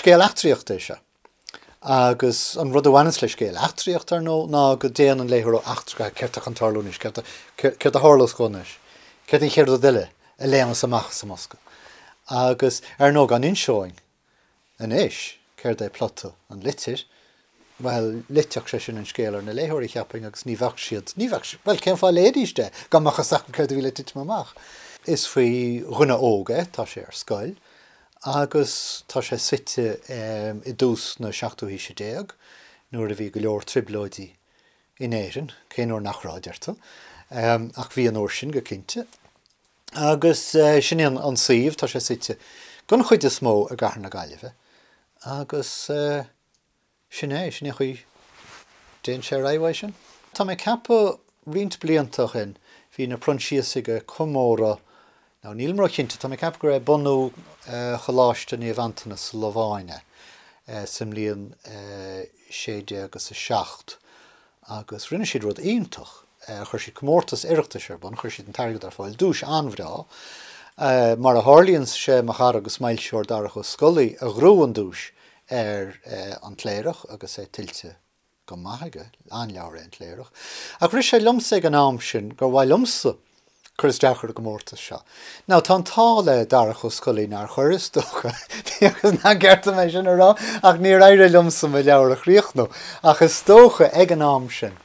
Scéal eachtraíochta é seo. Agus an rud a bhaineanns le scéal eachtraíochta, ar ndóigh, ná go dtéann an léitheoir ó eachtra go céard atá chun tarlú anois, céard a tharlós dhó anois, céard an chéad rud eile a léimeas amach as an mbosca. Agus, ar ndóigh, dá n-inseoinn anois céard é plota An Litir, bhuel, loitfeadh sé sin an scéal ar na léitheoirí, cheapfainn, agus ní bheadh siad, ní bheadh, bhuel, cén fáth a léifidís é dá mbeadh fhios acu céard a bhí le titim amach? Is faoi dhuine óg é, tá sé ar scoil, Agus tá sé suite i dtús na seachtú haoise déag, nuair a bhí go leor trioblóidí in Éirinn, cén uair nach raibh, a deir tú, ach bhí an uair sin, go cinnte. Agus sin é an suíomh, tá sé suite den chuid is mó i gcathair na Gaillimhe, agus. Sin é, sin é an chaoi a dtéann sé ar aghaidh uaidh sin. Tá mé ag ceapadh roinnt blianta ó shin bhí na Proinsiasaigh ag comóradh, now nílim ró-chinnte, tá mé ag ceapadh gur é bunú Choláiste Naomh Antanas sa Lobháin é sa mbliain 1607 agus rinne siad rud iontach, chuir siad comórtas Oireachtais ar bun, chuir siad an t-airgead ar fáil, duais an-bhreá. Mar a tharlaíonn, sé mo chara agus m'fhoilsitheoir Darach Ó Scolaí a ghnóthaigh an duais ar An Cléireach agus é tuillte go maith aige, an-leabhar é An Cléireach. Ach rith sé liomsa ag an am sin gur mhaith liomsa cur isteach ar an gcomórtas seo. Now tá an t-ádh le Darach Ó Scolaí nár chuir, is dócha, bíodh nach gceart dom é sin a rá, ach níor éirigh liomsa mo leabhar a chríochnú. Ach is dócha ag an am sin,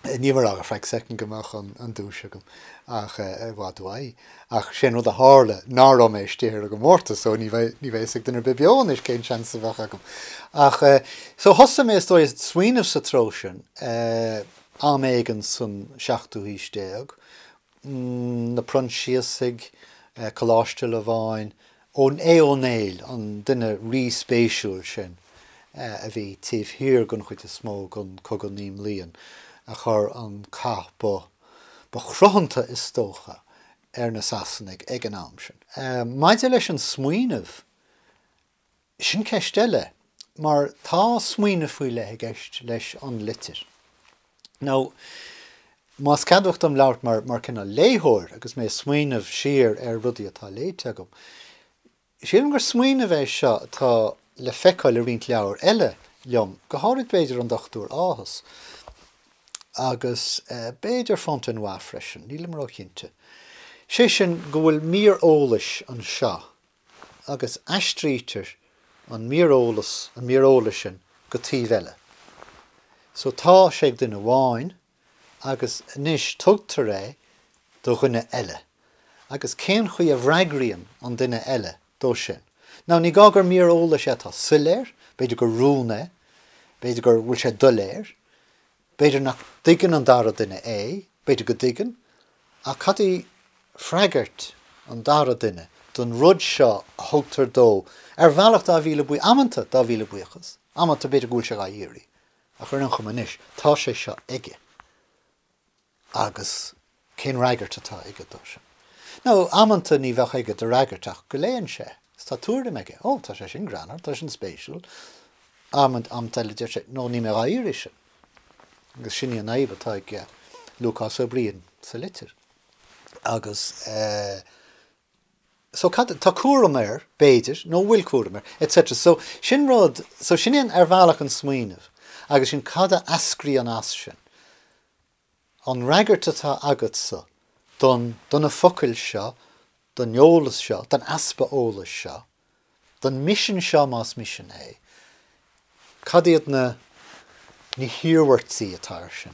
Níl mé ag rá go feadh soicind go mbeadh an duais agam, ach i bhfad uaidh. Ach sé an rud a tharla ná raibh mé istigh ar an gcomórtas, so ní bheidh a fhios ag duine ar bith beo anois cén seans a bheadh agam. Ach so thosaigh mé is dóigh ag smaoineamh sa treo sin am éigin san seachtú haois déag, na Proinsiasaigh, Coláiste Lobháin, Aodh Ó Néill, an duine rí-spéisiúil sin a bhí taobh thiar den chuid is mó den Cogadh Naoi mBliain, a chuir an cath ba ba chruthanta is dócha ar na Sasanaigh ag an am sin. Maidir leis an smaoineamh, Sin ceist eile, mar tá smaoineamh faoi leith i gceist leis an litir. Now, más ceadmhach dom labhairt mar, mar cineál léitheoir agus mé ag smaoineamh siar ar rudaí atá léite agam, sílim gur smaoineamh é seo atá le feiceáil i roinnt leabhar eile liom, go háirid b'fhéidir An Dochtúir Áthas, agus b'fhéidir Fontenoy freisin, nílim róchinnte. Sé sin go bhfuil mír eolais anseo agus aistrítear an mír eolas, an mír eolais sin go taobh eile. So tá sé ag duine amháin agus anois tugtar é do dhuine eile. Agus cén chaoi a bhfreagraíonn an duine eile dó sin? Now ní gá gur mír eolais é atá soiléir, b'fhéidir gur rún é, b'fhéidir gur bhfuil sé doiléir, B'fhéidir nach dtuigeann an dara duine é, b'fhéidir go dtuigeann, ach cad í freagairt an dara duine don rud seo a thugtar dó ar bhealach dá mhíle buí, amanta dá mhíle buíochas, amanta b'fhéidir go bhfuil sé dhá iarraidh, ach ar aon chuma anois, tá sé seo aige agus Cén fhreagairt atá aige dó sin? Nó amanta ní bheadh aige de fhreagairt ach go léann sé is tá tuairim aige, Ó, tá sé sin greannmhar, tá sin spéisiúil. Amanta eile deir sé, No, níl mé dhá iarraidh sin. Agus sin í an fhadhb atá ag Lúcás Ó Briain sa litir. Agus eh, so cad, tá cúram air, b'fhéidir, nó bhfuil cúram air, etc. So sin rud, so sin é ar bhealach an smaoineamh agus sin cad a eascraíonn as sin. An fhreagairt atá agatsa don, do na focail seo, don eolas seo, don easpa eolais seo, don misean seo más misean é, cad iad na, na hiarmhairtí atá air sin?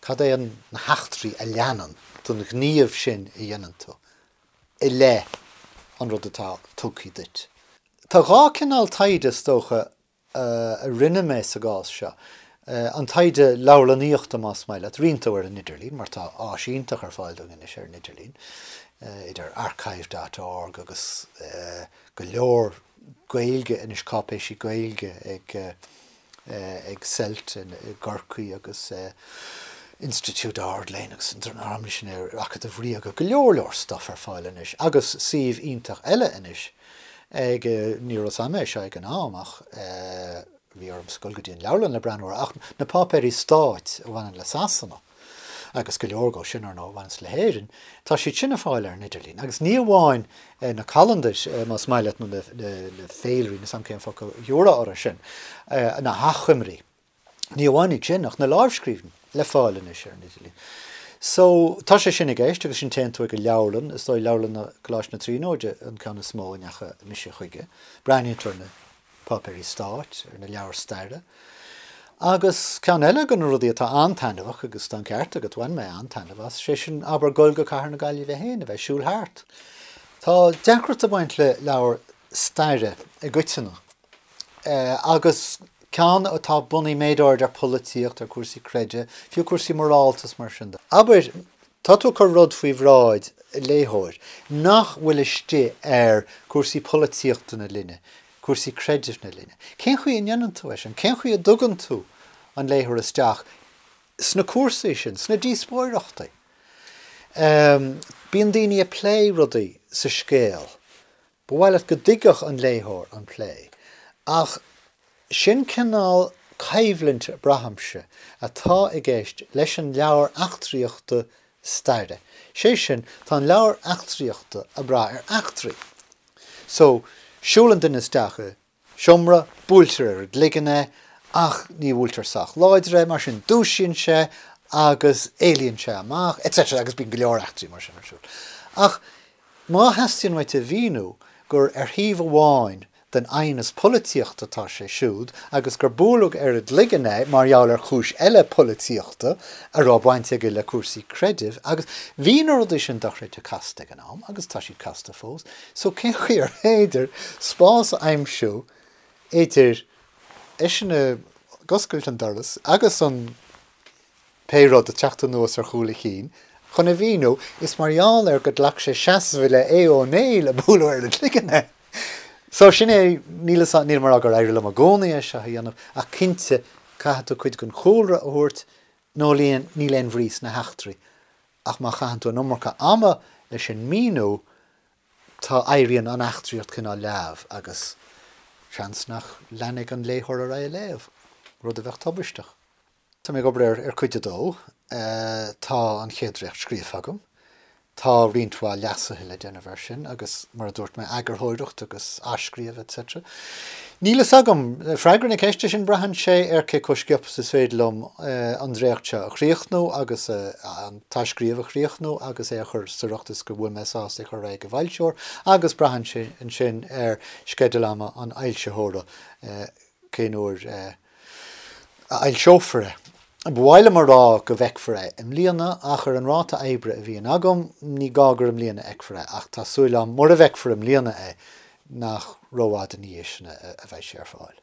Cad é an, na heachtraí a leanann don ghníomh sin a dhéanann tú i leith an rud atá tugtha duit? Tá dhá cineál taighde, is dócha, a rinne mé sa gcás seo, an taighde leabharlannaíochta más maith leat, roinnt dó ar an idirlíon, mar tá áis iontach ar fáil dúinn anois ar an idirlíon, idir archive dot org agus go leor Gaeilge anois, cáipéisí Gaeilge ag ag CELT i gCorcaigh agus Institiúid Ard-Léinn agus an dream sin ar Acadamh Ríoga, go leor leor stuff ar fáil anois agus suíomh iontach eile anois ag, ní raibh 'fhios a'm é seo ag an am ach bhí ormsa dul go dtí an leabharlann le breathnú air, ach na páipéirí stáit a bhaineann le Sasana. agus go leor dhó sin, ar ndóigh, a bhaineas le hÉirinn, tá siad sin ar fáil ar an idirlíon. Agus ní amháin na calandair, más maith leat, nó na féilirí, níl 's a'm cén focal a thiúrfá orthu sin, na hachoimrí. Ní amháin iad sin, ach na lámhscríbhinní le fáil anois ar an idirlíon. So, tá sé sin i gceist agus sin téann tú ag an leabharlann, is dóigh Leabharlann Choláiste na Tríonóide an ceann is mó a ndeachaigh mise chuige. Breathnaíonn tú ar na páipéirí stáit, ar na leabhair staire. Agus ceann eile de na rudaí atá an-taitneamhach, agus tá an ceart agat, bhain mé an-taitneamh as, sé sin, abair, dul go Cathair na Gaillimhe féin, a bheith ag siúl thart. Tá deacracht ag baint le leabhar staire i gcoitinne. Agus ceann atá bunaithe méid áirid ar pholaitíocht, ar cúrsaí creidimh, fiú cúrsaí morálta is mar sin de. Abair, tá tú ag cur rud faoi bhráid léitheoir nach bhfuil istigh ar cúrsaí polaitíochta na linne, cúrsaí creidimh na linne. Cén chaoi a ndéanann tú é sin? Cén chaoi a dtugann tú an léitheoir isteach sna cúrsaí sin, sna díospóireachtaí? Bíonn daoine ag plé rudaí sa scéal Ba mhaith leat go dtuigfeadh an léitheoir an plé, ach sin cineál coimhlint, braithimse, atá i gceist leis an leabhar eachtraíochta staire. Sé sin, tá an leabhar eachtraíochta ag brath ar eachtraí. So, siúlann duine isteach i seomra, buailtear ar an gcloigeann é, ach ní bhuailtear sách láidir é, mar sin dúisíonn sé agus éalaíonn sé amach, etc. agus bíonn go leor eachtraí mar sin ar siúl. Ach má theastaíonn uait a mhíniú gur ar thaobh amháin den aighneas polaitíochta atá sé siúd agus gur buaileadh ar an gcloigeann é mar gheall ar chúis eile polaitíochta a raibh baint aige le cúrsaí creidimh agus bhí na rudaí sin dochreidte casta ag an am agus tá siad casta fós. So cén chaoi ar féidir spás a aimsiú idir eisean ag oscailt an doras agus an pé rud ag teacht anuas ar chúl a chinn chun a mhíniú is mar gheall ar go ghlac sé seasamh i leith Aodh Ó Néill a buaileadh ar an gcloigeann é. So sin é, níl fhios, nílim ag rá gur éirigh liom i gcónaí é seo a dhéanamh ach cinnte caithfidh tú cuid den chúlra a thabhairt nó níl aon bhrí sna heachtraí ach má chaitheann tú an iomarca ama leis an míniú tá, éiríonn an eachtraíocht cineál leamh agus seans nach leanfaidh an léitheoir ar aghaidh ag léamh, rud a bheadh tubaisteach. Tá mé ag obair ar cuid a dó. Tá an chéad dréacht scríofa agam. Tá roinnt mhaith leasuithe le déanamh air sin agus, mar a dúirt mé, eagarthóireacht agus athscríobh etc. Níl fhios agam. Freagra na ceiste sin, braitheann sé ar cé chomh sciobtha is is féidir liom an dréacht seo a chríochnú agus an t-athscríobh a chríochnú agus é a chur sa riocht is go bhfuil mé sásta é a chur ar aghaidh ag an bhfoilsitheoir agus braitheann sé ansin ar sceideal ama an fhoilsitheora cén uair a fhoilseofar é. Ba mhaith liom a rá go bhfeicfear é i mbliana ach ar an ráta oibre a bhíonn agam ní gá gur i mbliana a fheicfear é ach tá súil agam mura bhfeicfear i mbliana é nach rófhada ina dhiaidh sin a bheidh sé ar fáil.